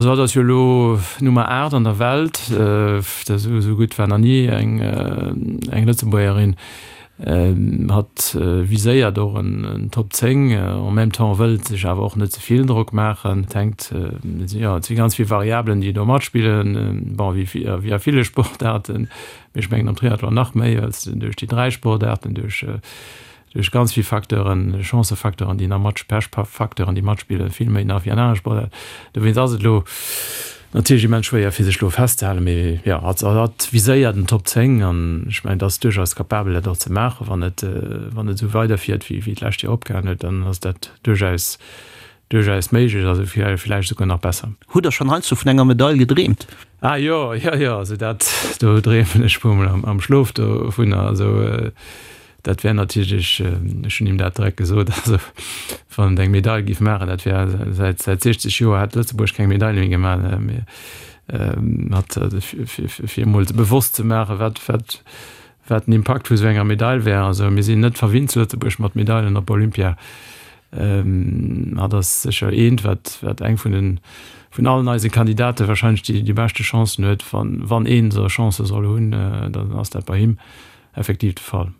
Also hatt ass jo elo Nummer 8 an der Welt. Esou gutt war nach ni eng Lëtzebuergerin. Hatt viséiert och en Top 10, en même temps wëllt sech awer och net ze vill Drock maachen. Et hänkt, jo, et si ganz vill Variabelen, déi do matspillen, bon, wéi a ville Sportaarten, mee ech mengen am Triathlon nach méi, well s de duerch déi 3 Sportaarten, duerch duerch ganz vill Facteuren, Chancefacteuren, déi nach mat, Pechfacteuren, déi matspillen, vill méi nach wéi an anere Sportaarten. Dowéinst ass et elo natierlech immens schwéier, fir sech elo festzehalen, mee jo, hatt hatt viséiert en Top 10 an ech mengen, et ass duerchaus capabel, dat och ze maachen. Wann et, wann et esou weiderfiert, wéi wéi d'lescht Joer opgehalen huet, dann ass dat duerchaus, duerchaus méiglech, also villäicht esouguer nach besser. Hutt Der schonn heiansdo vun enger Medail gedreemt? Ah jo, jo, jo, also dat, do dreemen ech puer mol am, am Schlof dovunner, also. Dat wär natierlech, ech hunn him dat direkt gesot, also wann et eng Medail géif maachen, dat wär säit säit 60 Joer hätt Lëtzebuerg keng Medail méi gemaach, mee mat fir emol bewosst ze maachen, wat wat wat den Impakt vu sou enger Medail wär. Also mir sinn net verwinnt zu Lëtzebuerg mat Medailen op Olympia. Hat ass sécher eent, wat wat eng vun den vun allen eise Kandidate wahrscheinlech déi déi beschte Chancen huet. Wann wann een esou Chancë soll hunn, dann ass dat bei him. Effektiv de Fall.